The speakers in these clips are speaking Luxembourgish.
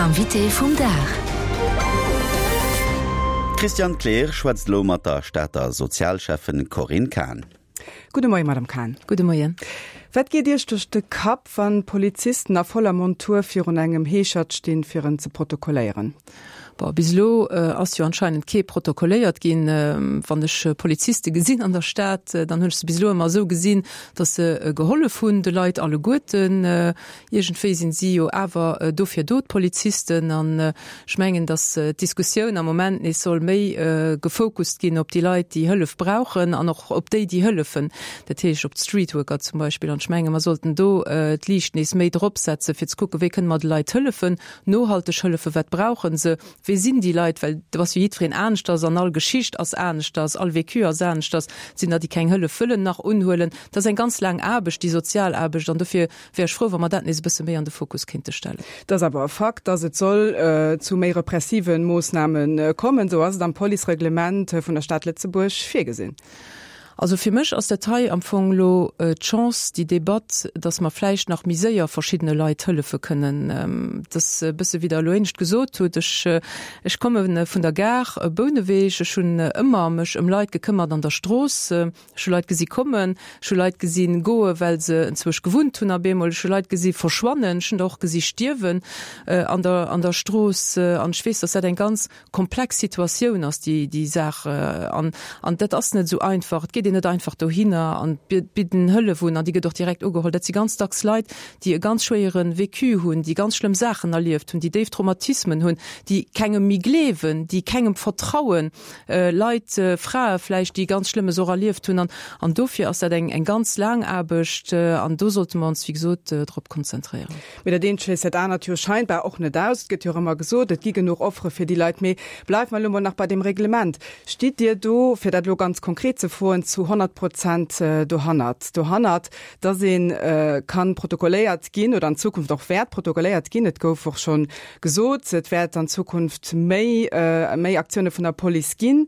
L'invité vum Dag. D'Christiane Kleer schwätzt elo mat der Stater Sozialschäffen Corinne Cahen. Gudde Moien, Madame Cahen. Gudde Moien. Wat geet Iech duerch de Kapp, wann Polizisten a voller Montur virun engem Heeschert stinn, fir en ze protokolléieren? Bon, bis elo ass jo anscheinend kee protokolléiert ginn. Wann ech Poliziste gesinn an der Stad, dann hunn ech se bis elo ëmmer esou gesinn, datt se gehollef hunn de Leit alleguerten. Iergendwéi sinn si jo awer dofir do, d'Polizisten. An ech mengen, datt d'Diskussioun am Moment nees soll méi gefocust ginn op déi Leit, déi Hëllef brauchen an och op déi, déi hëllefen, dat heescht op d'Streetworker zum Beispill. An ech menge mer sollten do d'Liicht nees méi drop setzen, fir ze kucken, wéi kënne mer de Leit hëllefen, Nohalteg hëllefen, wat brauchen se, wee sinn déi Leit, well do ass jo jiddwereen aneschters an all Geschicht ass aneschters, all Vécu ass aneschters. Et sinn der, déi keng Hëllef wëllen nach unhuelen. Dat ass eng ganz laang Aarbecht, déi sozial Aarbecht, an dofir wär ech frou, wa mer dat nees e bësse méi an de Fokus kéinte stellen. Et ass awer e Fakt, dass et soll zu méi repressive Moossname kommen. Esou ass et am Policereglement vun der Stad Lëtzebuerg virgesinn. Also fir mech ass dat hei am Fong elo d'Chance, déi Debatt, datt mer vläicht nach méi séier verschiddene Leit hëllefe kënnen. Et ass e bësse wéi Der elo éinescht gesot hutt, ech, ech komme vun der Gare Bouneweg, ech hunn ëmmer mech ëm Leit gekëmmert an der Strooss. Ech hu Leit gesi kommen, ech hu Leit gesi goe well se enzwousch gewunnt hunn op eemol, ech hu Leit gesi verschwannen, ech hunn der och gesi stierwen an der, an der Strooss. An ech weess, datt dat eng ganz komplex Situatioun ass déi déi Saach an an dat ass net esou einfach. Et geet een net einfach dohinner an bidden Hëllef un an déi gëtt och direkt ugeholl. Dat si ganz dacks Leit, déi e ganz schwéiere Vécu hunn, déi ganz schlëmm Saachen erlieft hunn, déi déif Traumatismen hunn, déi kengem méi gleewen, déi kengem vertrauen, Leit, Frae vläicht, déi ganz Schlëmmes och erlieft hunn an an dofir ass dat eng eng ganz laang Aarbecht an do sollte mer ons wéi gesot drop konzentréieren. Mee dat eent schléisst dat anert jo scheinbar och net aus. Et gëtt jo och ëmmer gesot, et gi genuch Offere fir déi Leit. Mee bleiwe mer elo mol nach bei deem Reglement. Stitt Dir do, fir dat elo ganz konkret ze froen, zu 100 Prozent dohannert, dohannert, dass ee ka protokolléiert ginn oder an Zukunft och wäert protokolléiert ginn? Et gouf och scho gesot, et wäert an Zukunft méi, méi Aktioune vun der Police ginn.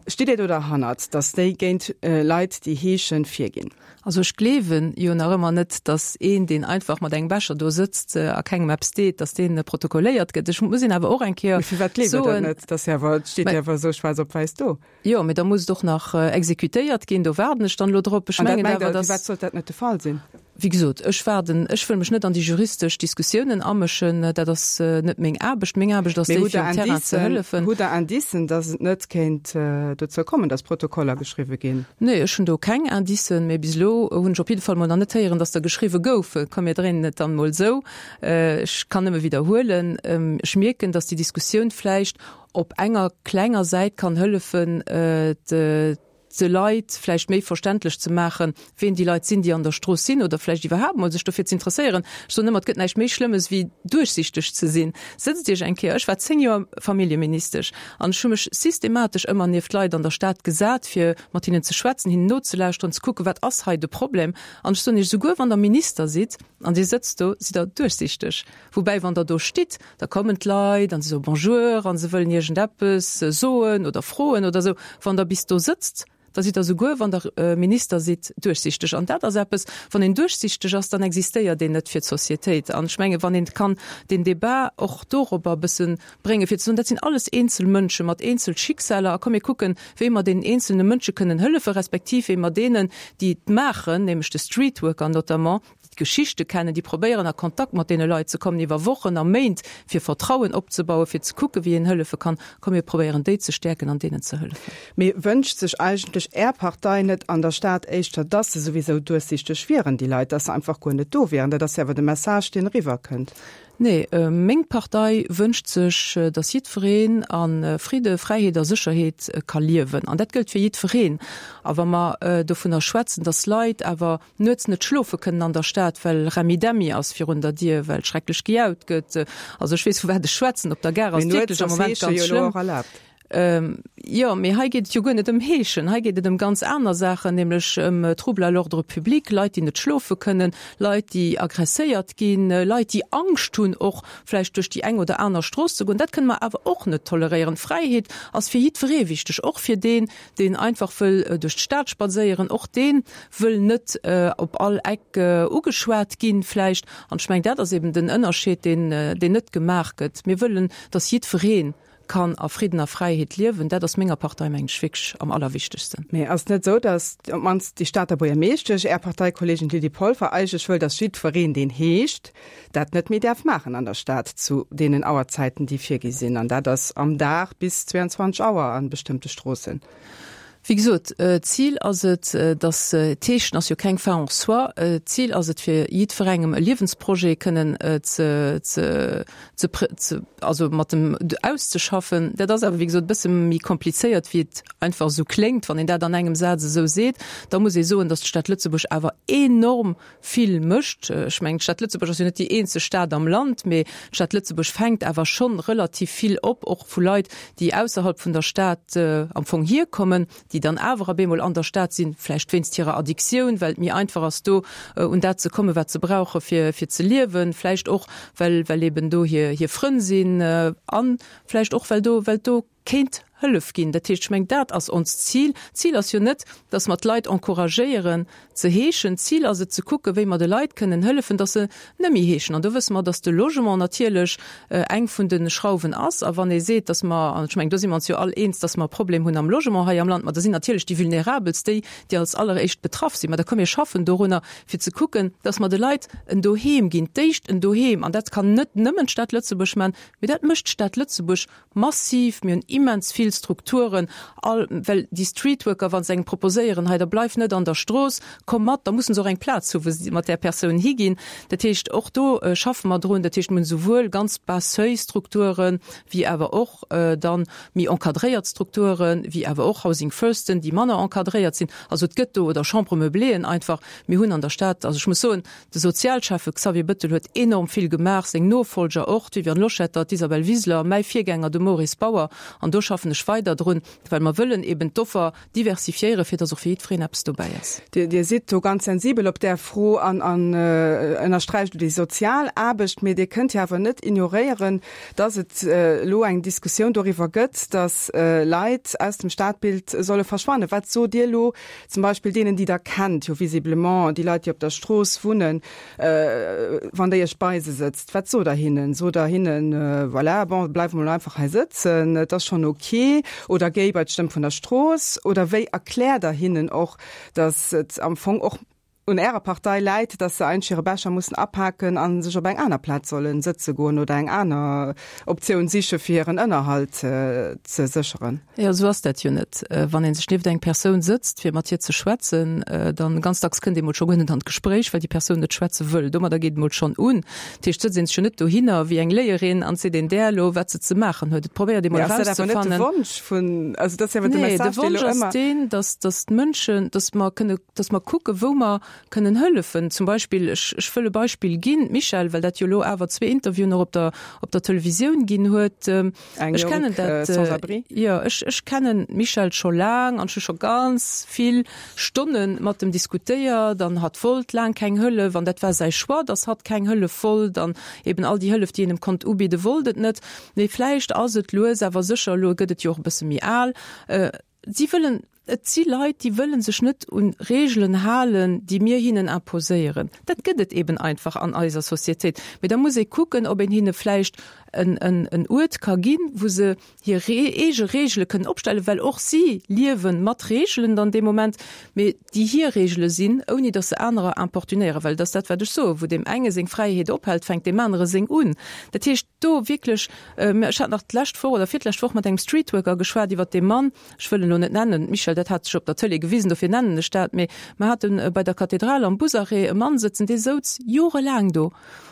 Stitt Dir do derhannert, dass déi géint Leit, déi heeschen, virginn? Also ech gleewen jo nach ëmmer net, datt een, deen einfach mat engem Becher do sëtzt a kengem eppes deet, datt deen protokolléiert gëtt. Ech muss een awer och eng Kéier soen. Mee firwat gleeft Der dat net? Dat ass jo awer, et steet jo awer esou schwaarz op wäiss do. Jo, mee da muss et och nach exekutéiert ginn. Do waarden ech dann elo drop. Ech mengen awer, datt. Firwat sollt dat net de Fall sinn? Wéi gesot, ech waarden, ech wëll mech net an déi juristesch Diskussiounen amëschen, dat ass net meng Aarbecht. Meng Aarbecht ass déi, fir um Terrain ze hëllefen. Hutt Der Indicen, datt et net kéint dozou kommen, datt Protokoller geschriwwe ginn? Nee, ech hunn do keng Indicen, mee bis elo hunn ech op jidde Fall mol nach net héieren, datt der geschriwwe goufen. Komm mir dréinen et dann emol esou. Ech kann nëmme widderhuelen, ech mierken, datt déi Diskussioun vläicht op enger klenger Säit kann hëllefen, de Leit vläicht méi verständlech ze maachen, ween déi Leit sinn, déi an der Strooss sinn, oder vläicht iwwerhaapt mol sech dofir ze interesséieren. Ech soen ëmmer, et gëtt näischt méi Schlëmmes wéi duerchsichteg ze sinn. Sëtzt Iech eng Kéier, ech war 10 Joer Familljeministesch an ech hu mech systematesch ëmmer nieft Leit an der Stad gesat, fir mat hinnen ze schwätzen, hinnen nozelauschteren, ze kucken, wat ass hei de Problem. An ech soen Iech, souguer wann Der Minister sidd an Dir sëtzt do, sidd Der duerchsichteg. Woubäi, wann Der do stitt, da kommen d'Leit an se soe Bonjour a se wëllen iergendeppes soen oder froen oder esou. Wann Der bis do sëtzt, da sidd Der souguer, wann Der Minister sidd, duerchsichteg. An dat ass eppes, wann een duerchsichteg ass, dann existéiert een net fir d'Sociétéit. An ech menge wann een kann deen Débat och dorobber e bësse bréngen, fir ze soen, dat sinn alles eenzel Mënsche mat eenzel Schicksaler a komm mir kucken, wéi mer deenen eenzelne Mënsche kënnen hëllefen, respektiv wéi mer deenen, déi et maachen, nämlech de Streetworker notamment, déi d'Geschichte kennen, déi probéieren a Kontakt mat deene Leit ze kommen iwwer Wochen a Méint, fir Vertrauen opzebauen, fir ze kucken, wéi een hëllefe kann. Komm mir probéieren déi ze stäerken an deenen ze hëllefen. Mee wënscht sech eigentlech Är Partei net an der Stad éischter, dass se souwisou duerchsichteg wieren, déi Leit, dass se einfach guer net do wieren? Dat ass jo awer de Message, deen eriwwerkënnt. Nee, meng Partei wënscht sech, dass jiddwereen a Fridde, Fräiheet a Sécherheet ka liewen. An dat gëllt fir jiddwereen. A wa mer dovunner schwätzen, dass Leit awer nuets net schlofe kënnen an der Stad, well Remmi-Demmi ass virun der Dier, well schrecklech gejaut gëtt. Also ech weess, vu wat ech schwätzen. Op der Gare ass et wierklech am Moment ganz schlëmm. Jo, mee hei geet et jo guer net ëm Heeschen. Hei geet et ëm ganz aner Saachen, nämlech ëm Troubles à l'ordre public, Leit, déi net schlofe kënnen, Leit, déi agresséiert ginn, Leit, déi Angscht hunn, och vläicht duerch déi eng oder aner Strooss ze goen. Dat kënne mer awer och net toleréieren. Fräiheet ass fir jiddweree wichteg, och fir deen, deen einfach wëll duerch d'Stad spadséieren. Och dee wëll net op all Eck ugeschwat ginn vläicht. An ech mengen, dat ass eben den Ënnerscheed, deen, deen net gemaach gëtt. Mir wëllen, dass jiddweree kann a Fridden a Fräiheet liewen, dat ass menger Partei, mengen ech, wierklech am allerwichtegsten. Mee ass et net esou, datt op d'mannst déi Stater Buergermeeschtesch, Är Parteikolleegin Lydie Polfer, eigentlech wëll, datt jiddwereen, deen heescht, dat net méi däerf maachen an der Stad zu deenen Auerzäiten, déi virgi sinn? An dat ass am Dag bis 22 Auer a bestëmmte Stroossen. Wéi gesot, d'Zil ass et, datt, d'Heeschen ass jo keng Fin en soi, d'Zil ass et fir jiddwerengem e Liewensprojet kënnen ze, ze, ze, ze, also mat dem auszeschaffen. Dat ass awer, wéi gesot, e bësse méi komplizéiert, wéi et einfach esou kléngt, wann een dat an engem Saz esou seet. Da muss ee soen, datt d'Stad Lëtzebuerg awer enorm vill mécht. Ech mengen, d'Stad Lëtzebuerg ass jo net déi eenzeg Stad am Land, mee d'Stad Lëtzebuerg fänkt awer schonn relativ vill op, och vu Leit, déi ausserhalb vun der Stad am Fong hierkommen, déi dann awer op eemol an der Stad sinn, vläicht wéinst hirer Addictioun, well et méi einfach ass, do un dat ze kommen, wat se brauche fir fir ze liewen, vläicht och well well eben do hir hir Frënn sinn a vläicht och well do well do kéint Hëllef ginn. Dat heescht, ech mengen, dat ass onst Zil. D'Zil ass jo net, dass mer d'Leit encouragéieren ze heeschen. D'Zil ass et ze kucken, wéi mer de Leit kënnen hëllefen, dass se net méi heeschen. An do wësse mer, dass de Logement natierlech eng vun de Schrauwen ass. A wann ee seet, dass mer, an ech mengen, do si mer ons jo all eens, dass mer e Problem hunn am Logement hei am Land, ma da sinn natierlech déi Vulnerabelst déi, déi als alleréischt betraff sinn. Ma da komm mir schaffen dorunner, fir ze kucken, dass mer de Leit en Doheem ginn, d'éischt en Doheem. An dat kann net nëmmen d'Stad Lëtzebuerg maachen, mee dat mécht d'Stad Lëtzebuerg Massiv, mir hunn immens vill Strukturen, all, well déi Streetworker, wa se engem proposéieren, hei da bleif net an der Strooss, komm mat, da mussen se och eng Plaz hu wou se mat där Persoun higinn. Dat heescht, och do schaffe mer drun. Dat heescht, mir hunn esouwuel ganz Bas-seuil-Strukturen, wéi awer och dann méi encadréiert Strukturen, wéi awer och Housing Firsten, déi manner encadréiert sinn. Also et gëtt do, oder Chambre-meubléeën einfach. Mir hunn an der Stad, also ech muss soen, De Sozialschäffe Xavier Bettel huet enorm vill gemaach, seng Nofollger och, d'Viviane Loschetter, d'Isabel Wiseler, mäi Virgänger, de Maurice Bauer. An do schaffen ech weider drun, well mer wëllen eben d'Offer diversifiéieren, fir dass och fir jiddwereen eppes dobäi ass. Dir sidd do ganz sensibel op där Fro an ënnersträicht elo déi sozial Aarbecht. Mee Dir kënnt jo awer net ignoréieren, dass et elo eng Diskussioun doriwwer gëtt, dass Leit aus dem Stadbild solle verschwannen. Wat sot Dir elo Zum Beispill deenen, déi Der kennt, jo visiblement déi Leit, déi op der Strooss wunnen, wann Der Iech bei se sëtzt, wat sot Der hinnen? Sot Der hinnen, voilà, bon, bleif emol einfach hei sëtzen, et ass schonn ok, oder géi bei d'Stëmm vun der Strooss? Oder wéi erkläert Der hinnen och, datt et am Fong och un Ärer Partei läit, datt se eigentlech hire Becher mussen apaken a sech op eng aner Plaz solle sëtze goen oder eng aner Optioun siche fir hiren Ënnerhalt ze sécheren? Jo, esou ass dat jo net. Wann ee sech nieft eng Persoun sëtzt, fir mat hir ze schwätzen, dann ganz dacks kënnt ee mol scho guer net an d'Gespréich, well déi Persoun net schwätze wëll. Domadder geet et mol schonn un. Dat heescht, et sëtzt ee sech jo net dohinner wéi eng Léierin an seet een där elo, wat se ze maachen huet. Et probéiert ee mol erauszefannen. Mee ass dat awer net de Wonsch vun, also dat ass jo awer de Message, dee elo ëmmer. Nee, de Wonsch ass deen, dass, dass d'Mënschen, dass mer kënne, dass mer kucken, wou mer kënnen hëllefen. Zum Beispill, ech, ech wëll e Beispill ginn, d'Michèle, well dat jo elo awer zwee Interviewen och op der, op der Televisioun ginn huet. Eng Ech kennen jonk dat, Sans-abri. jo, ech, ech kennen d'Michèle scho laang an ech hu scho ganz vill Stonne mat em diskutéiert an hatt wollt laang keng Hëllef an dat war säi Choix, dass hatt keng Hëllef wollt an eben all déi Hëllef, déi een em konnt ubidden, wollt et net. Mee vläicht ass et lues awer sécher, elo gëtt et jo och e bësse méi al, si wëllen, Et si Leit, déi wëlle sech net un Reegelen halen, déi mir hinnen imposéieren. Dat gëtt et eben einfach an eiser Societéit. Mee da muss ee kucken, ob een hinne vläicht en Uert ka ginn, wou se hir eege Reegele kënnen opstellen, well och si liewe mat Reegelen dann dee Moment, mee déi hir Reegele sinn, ouni datt se anerer importunéieren. Well et ass dat, wat ech soen, Wou deem enge seng Fräiheet ophält, fänkt deem anere seng un. Dat heescht, do wierklech, ech hat nach d'lescht Woch oder virlescht Woch mat engem Streetworker geschwat iwwert dee Mann, Ech wëll en elo net nennen, d'Michèle. dat hat sech op der Tëlee gewisen, dofir nennen ech dat, mee mer hate bei der Kathedral am Busarrêt e Mann sëtzen, dee souz jorelaang do.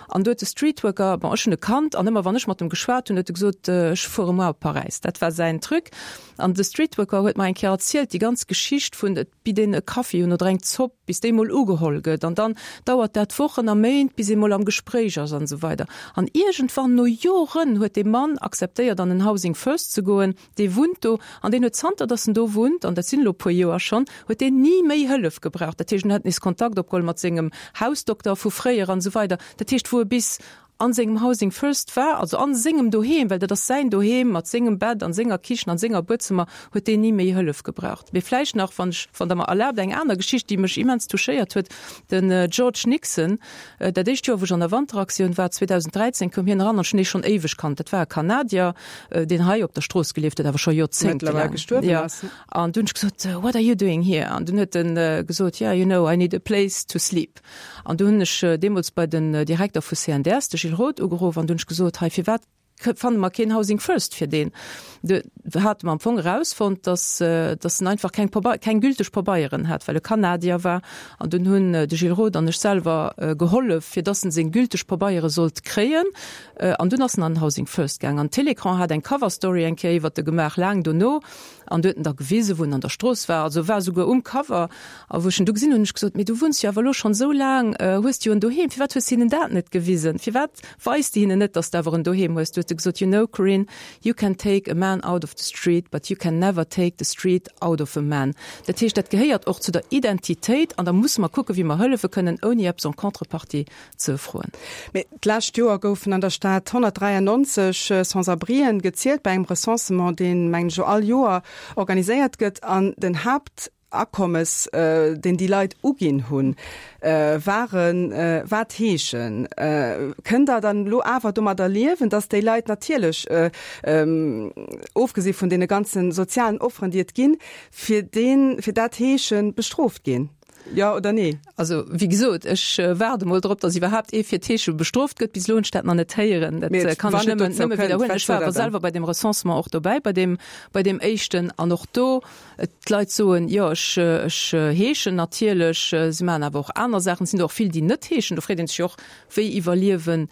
An do huet de Streetworker, bon, ech hunn e kannt, an ëmmer wann ech mat em geschwat hunn, huet e gesot, ech fuere muer op Paräis. Dat war säin Truc. An de Streetworker huet mer eng Kéier erzielt, déi ganz Geschicht vun, et bitt een e Kaffi un oder eng Zopp, bis déi mol ugeholl gëtt, an dann dauert dat Wochen a Méint, bis ee mol am Gespréich ass an esou weider. An iergendwann, no Joren, huet dee Mann akzeptéiert, an en Housing First ze goen. Dee wunnt do an deen huet zanter datt en do wunnt, an dat sinn elo e puer Joer schonn, huet deen ni méi Hëllef gebraucht. Dat heescht, en huet nees Kontakt opgeholl mat sengem Hausdokter vu fréier an esou weider. Dat heescht, wou e bis an sengem Housing First war, also a sengem Doheem, well dat ass säin Doheem mat sengem Bett an senger Kichen an senger Buedzëmmer, huet deen ni méi Hëllef gebraucht. Mee vläicht nach, wann ech, wann Der mer erlaabt, eng aner Geschicht, déi mech immens touchéiert huet, Den George Nixon, Dat éischt Joer, wou ech an der Wanteraktioun war, 2013, koum hien eran an ech hunn dee schonn éiweg kannt. Dat war e Kanadier, deen hei op der Strooss gelieft huet, awer scho joerzéngtelaang. Gestuerwen Ja. ass. An du hunn ech gesot, What are you doing here? An dunn huet en gesot, Yeah, you know, I need a place to sleep. An du hunn ech deemools bei den Direkter vu CNDS, de Gilles Roth, ugeruff an du hunn ech gesot, Hei, firwat fanne mer keen Housing First fir deen. Do hate mer am Fong erausfonnt, dass, dass en einfach keng Pabei-, keng gülteg Pabeieren hat, well e Kanadier war. An dunn hunn de Gilles Roth an ech selwer gehollef, fir dass en seng gülteg Pabeiere sollt kréien. An dunn ass en an den Housing First gaang. An Télécran hat eng Cover Story eng Kéier iwwert e gemaach, laang dono. An du huet en da gewisen, wou en an der Strooss war. Also war esouguer um Cover. A wou ech en du gesinn hunn, hunn ech gesot, Mee du wunns jo awer elo schonn esou laang, hues de jo en Doheem, firwat hues de hinnen dat net gewisen? Firwat weis de hinnen net, dass de awer en Doheem hues? Du huet e gesot, You know, Corinne, you can take a man out of the street, but you can never take the street out of a man. Dat heescht, dat gehéiert och zu der Identitéit an da musse mer kucken, wéi mer hëllefe kënnen, ouni eppes en contrepartie ze froen. Mee d'lescht Joer goufen an der Stad 193 Sans-abrien gezielt bei engem Recensement, deen, mengen ech, all Joer organiséiert gëtt. An den Haaptakommes, deen déi Leit uginn hunn, waren, war d'Heeschen. Kënnt Der dann elo awer domadder liewen, datt déi Leit natierlech, ofgesi vun deene ganze sozialen Offeren, déi et ginn, fir deen, fir dat Heesche bestrooft ginn? Jo oder nee? Also, wéi gesot, ech waarde mol drop, datt iwwerhaapt ee fir d'Heesche bestrooft gëtt. Bis elo hunn ech dat nach net héieren. Dat Mee kann ech wann et nëmmen, dozou nëmme kënnt, widderhuelen. wat Ech war sot awer Der dann? selwer bei deem Recensement och dobäi, bei deem, bei deem éischten. An och do, d'Leit soen, jo, ech, ech heeschen natierlech. Si maachen awer och aner Saachen. Et sinn der och vill, déi net heeschen. Do freet ee sech jo och, wéi iwwerliewen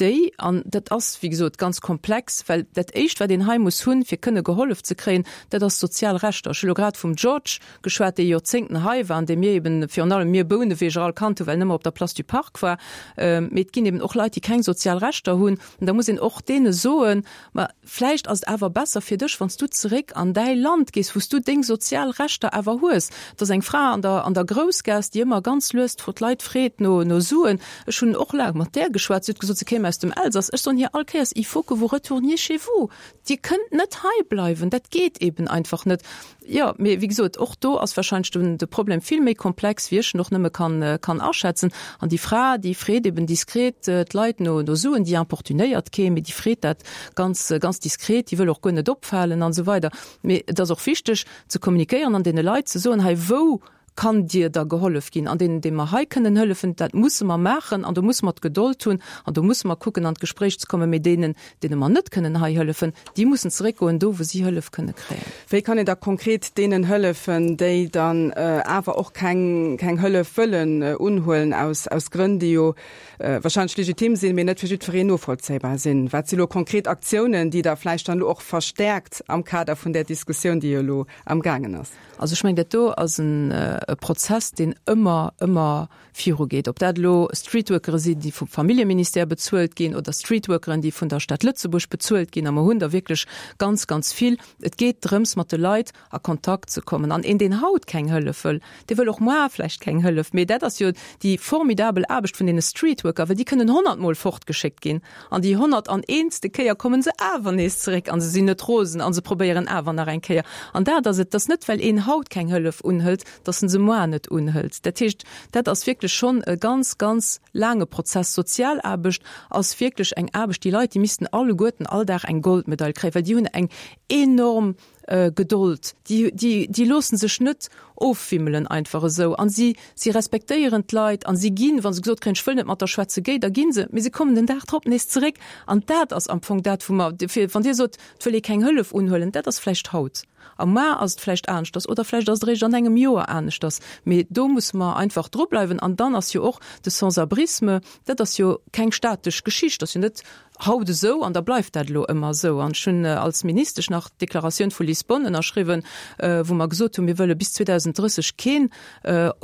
déi, an dat ass, wéi gesot, ganz komplex, well dat Éischt, wat een hei muss hunn, fir kënne gehollef ze kréien, dat ass sozial Rechter. Ech hu lo grad vum George geschwat, dee Joerzéngten hei war an dee mir eben, virun allem mir Bouneweger all kannt hunn, well en ëmmer op der Place du Parc war. Mee et ginn eben och Leit, déi keng sozial Rechter hunn. An da muss een och deene soen, Ma vläicht ass et awer besser fir dech, wann s du zeréck an däi Land gees, wou s du deng sozial Rechter awer hues. Et ass eng Fra an der, an der Groussgaass, déi ëmmer ganz lues d'Leit freet no, no Suen. Ech hunn och laang mat där geschwat. Si huet gesot, se kéim aus dem Elsass. Ech soen hir all Kéiers, Il faut que vous retourniez chez vous. Dir kënnt net hei bleiwen. Dat geet eben einfach net. Jo, mee wéi gesot, och do ass wahrscheinlech den, de Problem vill méi komplex, wéi ech en och nëmme kann, kann aschätzen. An déi Fra, déi freet eben diskret d'Leit no, no Suen, déi importunéiert kee, mee déi freet dat ganz, ganz diskret, déi wëll och guer net opfalen an esou weider. Mee et ass och wichteg ze kommunikéieren an deene Leit ze soen, hei wou kann dir da gehollef ginn, an deenen, deene mer hei kënnen hëllefen, dat musse mer maachen an do musse mer d'Gedold hunn an do musse mer kucken an d'Gespréich ze kommen, mee deenen, deene mer net kënnen hei hëllefen, déi mussen zeréckgoen do, wou si Hëllef kënne kréien. Wéi kann een da konkret deenen hëllefen, déi dann awer och keng, keng Hëllef wëllen unhuelen, aus, aus Grënn, déi jo wahrscheinlech legitim sinn, mee net fir jiddwereen novollzéibar sinn? Wat si lo konkret Aktiounen, déi Der vläicht dann elo och verstärkt am Kader vun där Diskussioun, déi jo elo amgaangen ass? Also ech mengen, dat do ass en Prozess, deen ëmmer, ëmmer virugeet. Ob dat elo Streetworkere sinn, déi vum Familljeministère bezuelt ginn, oder Streetworkeren, déi vun der Stad Lëtzebuerg bezuelt ginn, a mer hunn der wierklech ganz, ganz vill. Et geet drëms, mat de Leit a Kontakt ze kommen. An een, deen haut keng Hëllef wëll, dee wëll och moar vläicht keng Hëllef. Mee dat ass jo déi formidabel Aarbecht vun deene Streetworker, well déi kënnen honnertmol fortgeschéckt ginn. An déi 100 an eentste Kéier kommen se awer nees zeréck an se sinn net rosen an se probéieren awer nach eng Kéier. An dat ass et, et ass net well een haut keng Hëllef unhëlt, datt en se moar net unhëlt. Dat heescht, dat ass wierklech schonn e ganz, ganz laange Prozess. Sozialaarbecht ass wierklech eng Aarbecht, déi Leit, déi missten alleguerten all Dag eng Goldmedail kréien, well déi hunn eng enorm. Gedold, déi, déi, déi loosse sech net ofwimmelen einfach esou an si, si respektéieren d'Leit an si ginn, wa se gesot kréien, ech wëll net mat der schwätzen, géi, da gi se, mee se kommen den Dag drop nees zeréck an dat ass am Fong dat, wou mer, fir wann Dir sot, et wëll ee keng Hëllef unhuelen, dat ass vläicht haut a mar ass et vläicht aneschters oder vläicht ass et eréischt an engem Joer aneschters, mee do musse mer einfach drubleiwen an dann ass jo och de Sans-abrisme, dat ass jo keng statesch Geschicht, ass jo net haut esou an da bleift dat elo ëmmer esou. An ech hunn als Ministesch nach d'Deklaratioun vu Lisbonne ënnerschriwwen, wou mer gesot hunn, mir wëlle bis 2030 keen,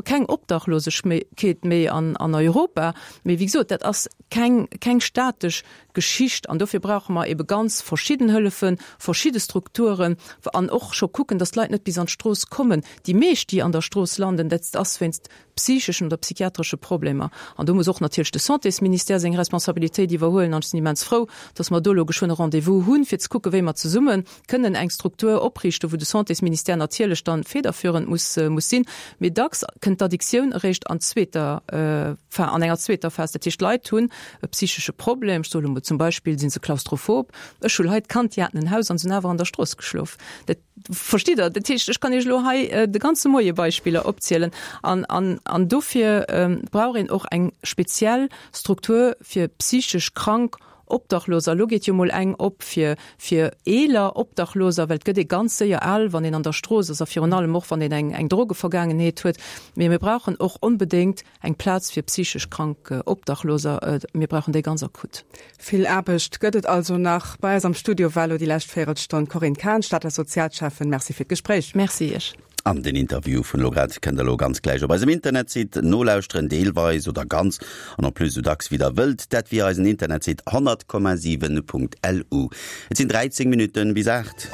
keng Obdachlosegkeet méi an Europa. Mee wéi gesot, dat ass keng, keng statesch Geschicht an dofir brauche mer ebe ganz verschidden Hëllefen, verschidde Strukturen an och scho kucken, datt d'Leit net bis an d'Strooss kommen. Déi meescht, déi an der Strooss landen, dat ass wéinst psycheschen oder psychiatresche Problemer. An do muss och natierlech de Santésministère seng Responsabilitéit iwwerhuelen. An ech sinn immens frou, dass mer do elo geschwënn e Rendez-vous hunn, fir ze kucken, wéi mer zesumme kënnen eng Struktur opriichten, wou de Santésministère natierlech dann federführend muss, muss sinn. Mee dacks kënnt d'Addictioun eréischt an zweeter, an enger zweeter Phas. Dat heescht, d'Leit hunn e psychesche Problem, ech soe lo mol zum Beispill si se klaustrophob. Ech hu Leit kannt, déi haten en Haus an se hunn awer an der Strooss geschlof. Dat Verstitt Der? Dat heescht, ech kann Iech elo hei de ganze Moie Beispiller opzielen. An, an, an dofir brauch een och eng speziell Struktur fir psychesch krank Obdachloser. Elo geet jo mol eng op fir, fir eeler Obdachloser, well et gëtt ee ganz séier al, wann een an der Strooss ass a virun allem och, wann een eng, eng Drogevergaangenheet huet. Mee mir brauchen och onbedéngt Eng Plaz fir psychesch krank Obdachloser, mir brauchen déi ganz akut. Vill Aarbecht gëtt et also nach. Bei eis am Studio war elo déi lescht Véierelstonn d'Corinne Cahen, Stater Sozialschäffen. Merci fir d'Gespréich. Merci Iech. An den Interview vun elo grad kënnt der elo ganz gläich op eisem Internetsite nolauschteren, deelweis oder ganz, an en plus esou dacks wéi der wëllt. Dat via eisen Internetsite 100,7.lu. Et sinn 13 Minutten bis 8.